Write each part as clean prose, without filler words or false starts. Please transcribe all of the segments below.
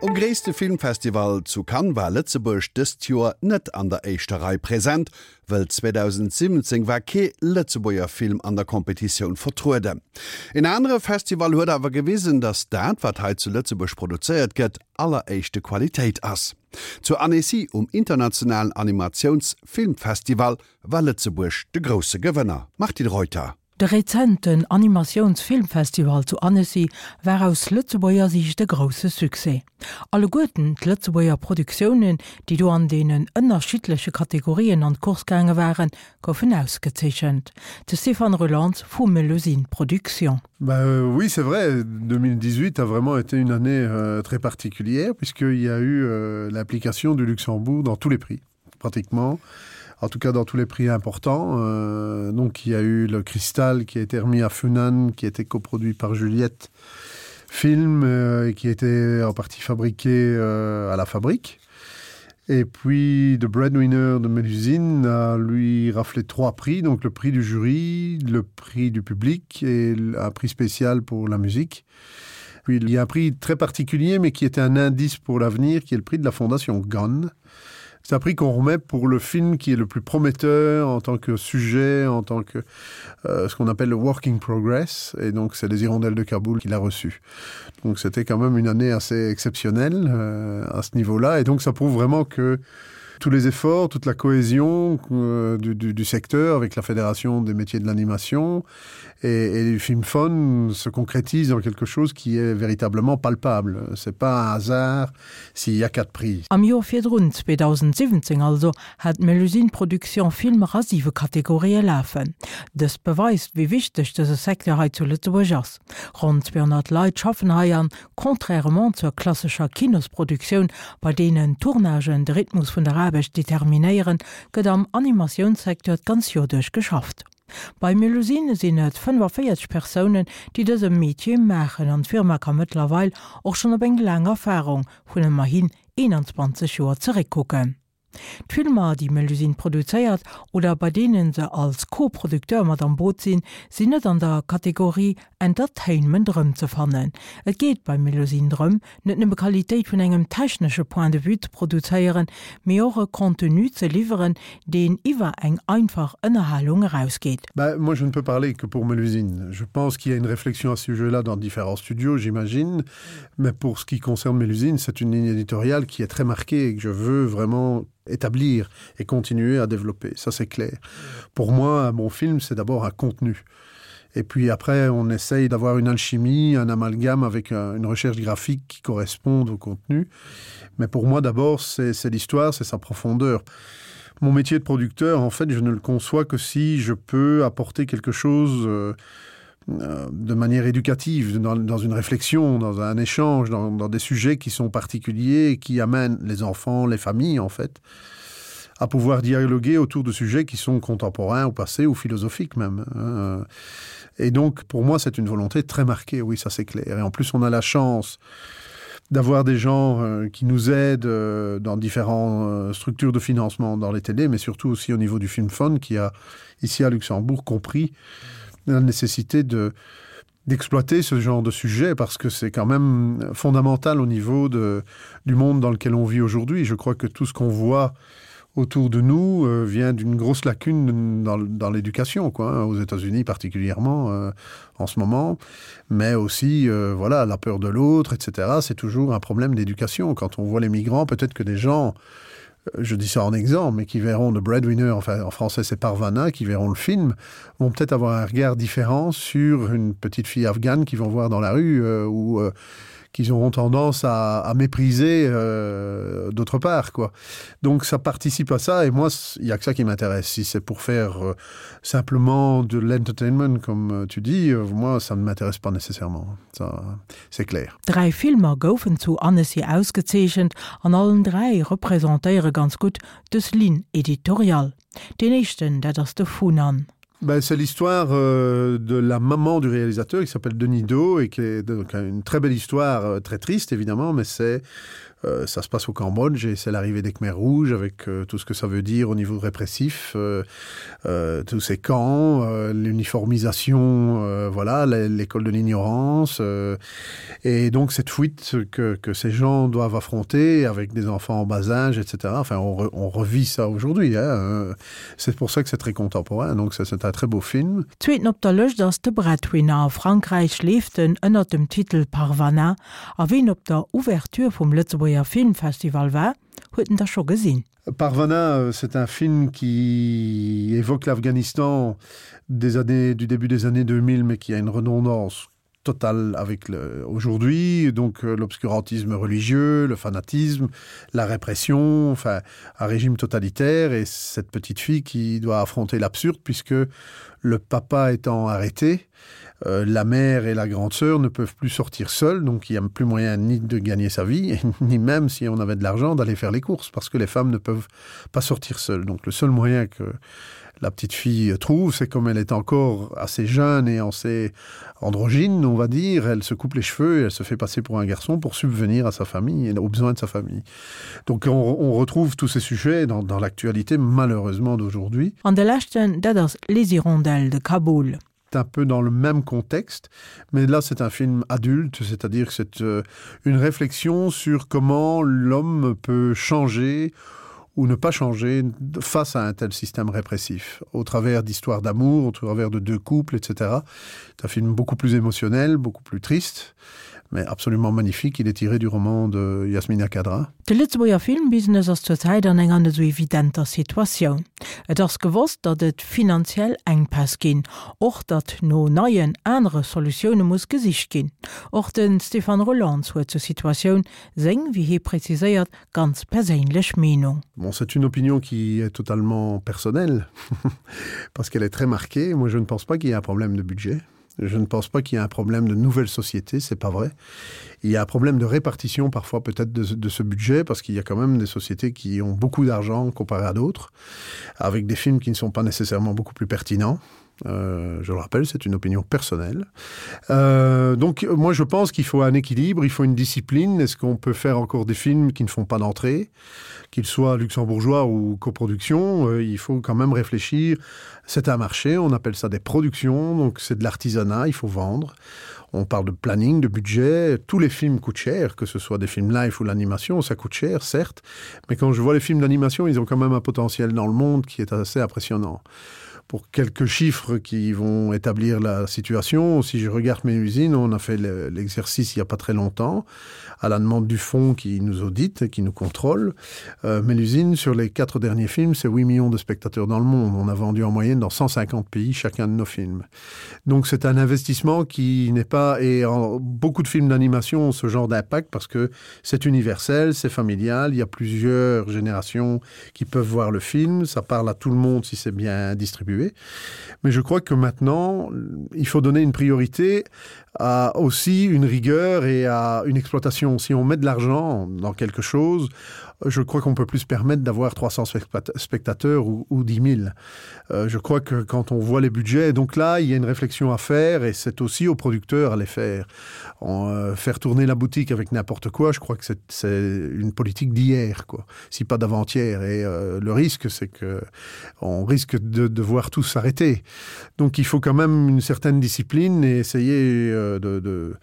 Um gréisste Filmfestival zu Cannes war Lëtzebuerg dëst Joer net an der éischter Rei present, wëll 2017 war kee Lëtzebuerger Film an der Competitioun vertrueden. En anere Festival huet awer gewisen, datt dat, wat hei zu Lëtzebuerg produzéiert gëtt, alleréischte Qualitéit ass. Zu Annecy um internationalen Animatiounsfilmfestival war Lëtzebuerg de grousse Gewënner. Martine Reuter. De rezenten Animatiounsfilmfestival zu Annecy war aus Lëtzebuerger Siicht e grousse Succès. Alleguerten d'Lëtzebuerger Produktiounen, déi do an deenen ënnerschiddleche Kategorien an d'Course gaange waren, goufen ausgezeechent. De Stéphane Roelants vu Melusine Productions. Ben oui, c'est vrai, 2018 a vraiment été une année euh, très particulière puisqu'il y a eu euh, l'application du Luxembourg dans tous les prix pratiquement en tout cas dans tous les prix importants euh, donc il y a eu le cristal qui a été remis à Funan qui a été coproduit par Juliette film euh, et qui était en partie fabriqué euh, à la fabrique et puis de breadwinner de Mélusine a lui raflé trois prix donc le prix du jury le prix du public et un prix spécial pour la musique puis il y a un prix très particulier mais qui était un indice pour l'avenir qui est le prix de la fondation Gunn C'est un prix qu'on remet pour le film qui est le plus prometteur en tant que sujet, en tant que euh, ce qu'on appelle le working progress et donc c'est les hirondelles de Kaboul qui l'a reçu. Donc c'était quand même une année assez exceptionnelle euh, à ce niveau-là et donc ça prouve vraiment que tous les efforts, toute la cohésion euh, du, du, du secteur avec la fédération des métiers de l'animation et, et du film fun se concrétise dans quelque chose qui est véritablement palpable. C'est pas un hasard s'il y a quatre prix. Am Joer virdrun, 2017 also, hat d'Melusine Production Filmer a siwe Kategorië lafen. Dëst beweist, wéi wichteg dëse Secteur hei zu Lëtzebuerg ass. Ronn 200 Leit schaffen hei an, contrairement zur klassescher Kinosproduktioun, bei deenen d'Tournagen de Rhythmus vun der Aarbecht determinéieren, gëtt am Animatiounssecteur d'ganz Joer duerch geschafft. Bei Melusine sinn et 45 Persounen, déi dëse Metier maachen an d'Firma ka mëttlerweil och schonn op eng laang Erfarung vun ëmmerhin 21 Joer zeréckkucken. D'Filmer, déi Melusine produzéiert oder bei deene se als Co-Producteur mat am Boot sinn, sinn net an der Kategorie Entertainment erëmzefannen. Et geet bei Melusine drëm, net nëmme Qualitéit vun engem technesche Point de vue ze produzéieren, mee och e Contenu ze liwweren, deen iwwer eng einfach Ënnerhalung erausgeet. Ben, moi je ne peux parler que pour Melusine. Je pense qu'il y a une réflexion à ce sujet-là dans différents studios, j'imagine. Mais pour ce qui concerne Melusine, c'est une ligne éditoriale qui est très marquée et que je veux vraiment établir et continuer à développer. Ça, c'est clair. Pour moi, un bon film, c'est d'abord un contenu. Et puis après, on essaye d'avoir une alchimie, un amalgame avec euh, une recherche graphique qui corresponde au contenu. Mais pour moi, d'abord, c'est l'histoire, c'est sa profondeur. Mon métier de producteur, en fait, je ne le conçois que si je peux apporter quelque chose euh, euh, de manière éducative, dans, dans une réflexion, dans un échange, dans, dans des sujets qui sont particuliers et qui amènent les enfants, les familles, en fait, à pouvoir dialoguer autour de sujets qui sont contemporains ou passés ou philosophiques même. Et donc, pour moi, c'est une volonté très marquée, oui, ça c'est clair. Et en plus, on a la chance d'avoir des gens euh, qui nous aident euh, dans différentes euh, structures de financement dans les télés, mais surtout aussi au niveau du film Fund qui a, ici à Luxembourg, compris la nécessité de d'exploiter ce genre de sujet parce que c'est quand même fondamental au niveau de, du monde dans lequel on vit aujourd'hui. Je crois que tout ce qu'on voit autour de nous euh, vient d'une grosse lacune dans, dans l'éducation quoi aux États-Unis particulièrement euh, en ce moment mais aussi euh, voilà la peur de l'autre etc c'est toujours un problème d'éducation quand on voit les migrants peut-être que des gens euh, je dis ça en exemple mais qui verront de breadwinner enfin en français c'est parvana qui verront le film vont peut-être avoir un regard différent sur une petite fille afghane qui vont voir dans la rue euh, ou euh, qu'ils auront tendance à, à mépriser euh, d'autre part quoi donc ça participe à ça et moi il y a que ça qui m'intéresse si c'est pour faire euh, simplement de l'entertainment comme euh, tu dis euh, moi ça ne m'intéresse pas nécessairement ça c'est clair Dräi Filmer goufen zu Annecy ausgezeechent an allen dräi representéiere ganz gutt dës Ligne éditoriale. Deen éischten, dat ass de Funan. Ben, c'est l'histoire euh, de la maman du réalisateur qui s'appelle Denis Do et qui est donc une très belle histoire euh, très triste évidemment mais c'est euh, Euh, ça se passe au Cambodge et c'est l'arrivée des Khmers rouges avec euh, tout ce que ça veut dire au niveau répressif, euh, euh, tous ces camps, euh, l'uniformisation, euh, voilà, l'école de l'ignorance euh, et donc cette fuite que, que ces gens doivent affronter avec des enfants en bas âge, etc. Enfin on, re, on revit ça aujourd'hui. Euh, c'est pour ça que c'est très contemporain, donc c'est un très beau film. Zweeten op der Lëscht ass de Breadwinner. A Frankräich leeft en ënnert dem Titel Parvana. A ween op der Ouverture vum Lëtzebuerger Filmfestival war, huet en da scho gesinn. Parvana, c'est un film qui évoque l'Afghanistan des années, du début des années 2000, mais qui a une redondance totale avec aujourd'hui donc euh, l'obscurantisme religieux, le fanatisme, la répression, enfin un régime totalitaire et cette petite fille qui doit affronter l'absurde puisque le papa étant arrêté, euh, la mère et la grande sœur ne peuvent plus sortir seules, donc il n'y a plus moyen ni de gagner sa vie, ni même si on avait de l'argent d'aller faire les courses parce que les femmes ne peuvent pas sortir seules. Donc le seul moyen que la petite fille trouve, c'est comme elle est encore assez jeune et assez androgyne, on va dire, elle se coupe les cheveux et elle se fait passer pour un garçon pour subvenir à sa famille et aux besoins de sa famille. Donc on, on retrouve tous ces sujets dans, dans l'actualité malheureusement d'aujourd'hui. An de leschten, dat ass Les Hirondelles de Kaboul. un peu dans le même contexte, mais là c'est un film adulte, c'est-à-dire que c'est euh, une réflexion sur comment l'homme peut changer ou ne pas changer face à un tel système répressif, au travers d'histoires d'amour, au travers de deux couples, etc. C'est un film beaucoup plus émotionnel, beaucoup plus triste, mais absolument magnifique. Il est tiré du roman de Yasmina Kadra. De Lëtzebuerger Filmbusiness ass zur Zäit an enger net esou evidenter Situatioun. Et ass gewosst, datt et finanziell Enkpäss ginn, och datt no neien, anere Solutioune muss gesicht ginn. Och de Stéphane Roelants huet zur Situatioun seng, wéi hie preziséiert, ganz perséinlech Meenung. Bon, c'est une opinion qui est totalement personnelle parce qu'elle est très marquée. Moi, je ne pense pas qu'il y ait un problème de budget. Je ne pense pas qu'il y ait un problème de nouvelle société, c'est pas vrai. Il y a un problème de répartition parfois peut-être de, de ce budget parce qu'il y a quand même des sociétés qui ont beaucoup d'argent comparé à d'autres, avec des films qui ne sont pas nécessairement beaucoup plus pertinents. Euh, je le rappelle, c'est une opinion personnelle. Euh, donc moi je pense qu'il faut un équilibre, il faut une discipline. Est-ce qu'on peut faire encore des films qui ne font pas d'entrée, qu'ils soient luxembourgeois ou coproduction, euh, il faut quand même réfléchir. C'est un marché, on appelle ça des productions, donc c'est de l'artisanat, il faut vendre. On parle de planning, de budget, tous les films coûtent cher, que ce soit des films live ou l'animation, ça coûte cher, certes, mais quand je vois les films d'animation, ils ont quand même un potentiel dans le monde qui est assez impressionnant pour quelques chiffres qui vont établir la situation. Si je regarde mes usines, on a fait l'exercice il n'y a pas très longtemps à la demande du fonds qui nous audite, qui nous contrôle. Euh, mais l'usine, sur les quatre derniers films, c'est 8 millions de spectateurs dans le monde. On a vendu en moyenne dans 150 pays chacun de nos films. Donc c'est un investissement qui n'est pas et en, beaucoup de films d'animation ont ce genre d'impact parce que c'est universel, c'est familial, il y a plusieurs générations qui peuvent voir le film, ça parle à tout le monde si c'est bien distribué. Mais je crois que maintenant, il faut donner une priorité à aussi une rigueur et à une exploitation. Si on met de l'argent dans quelque chose, je crois qu'on peut plus se permettre d'avoir 300 spectateurs ou, ou 10 000. Euh, je crois que quand on voit les budgets, donc là, il y a une réflexion à faire et c'est aussi aux producteurs à les faire. En, euh, faire tourner la boutique avec n'importe quoi, je crois que c'est une politique d'hier, quoi, si pas d'avant-hier. Et euh, le risque, c'est que on risque de devoir tous s'arrêter. Donc il faut quand même une certaine discipline et essayer euh, de, de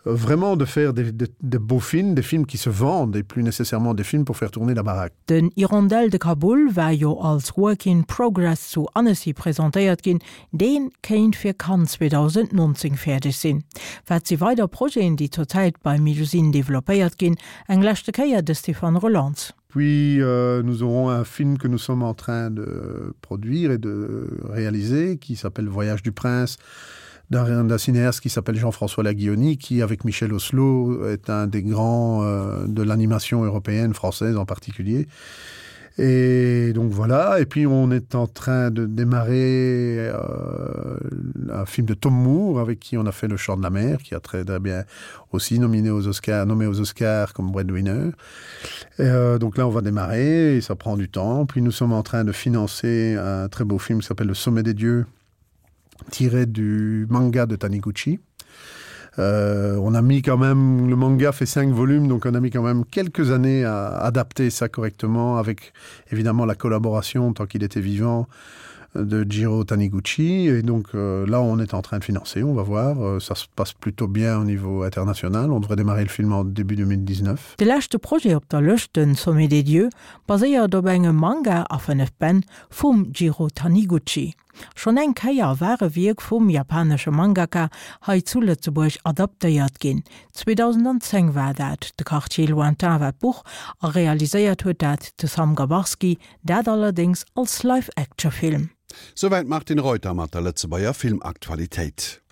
vraiment de faire des, des, des beaux films, des films qui se vendent et plus nécessairement des films pour faire tourner la baraque. Den Hirondelle de Kaboul war jo als Work in Progress zu Annecy presentéiert ginn, dee kéint fir Cannes 2019 fäerdeg sinn. Wat si weider Projeten, déi zur Zäit bei Melusine developpéiert ginn? Eng leschte Kéier de Stéphane Roelants. Puis euh, nous aurons un film que nous sommes en train de produire et de réaliser qui s'appelle Voyage du prince d'un cinéaste qui s'appelle Jean-François Laguioni qui avec Michel Oslo est un des grands euh, de l'animation européenne française en particulier. Et donc voilà, et puis on est en train de démarrer euh, un film de Tom Moore avec qui on a fait le chant de la mer, qui a très, très bien aussi nominé aux Oscars, nommé aux Oscars comme breadwinner. Et, euh, donc là on va démarrer et ça prend du temps. Puis nous sommes en train de financer un très beau film qui s'appelle Le sommet des dieux tiré du manga de Taniguchi. Euh, on a mis quand même le manga fait cinq volumes donc on a mis quand même quelques années à adapter ça correctement avec évidemment la collaboration tant qu'il était vivant de Jiro Taniguchi et donc euh, là on est en train de financer on va voir euh, ça se passe plutôt bien au niveau international on devrait démarrer le film en début 2019 De leschte Projet op der Lëscht, den Sommet des Dieux, baséiert op engem Manga a 5 Bänn vum Jiro Taniguchi. Schonn eng Kéier war e Wierk vum japanesche Mangaka hei zu Lëtzebuerg adaptéiert ginn. 2010 war dat, De Quartier lointain war d'Buch a realiséiert huet dat de Sam Gabarski, dat allerdéngs als Live-Action-Film. Souwäit d'Martine Reuter mat der Lëtzebuerger Filmaktualitéit.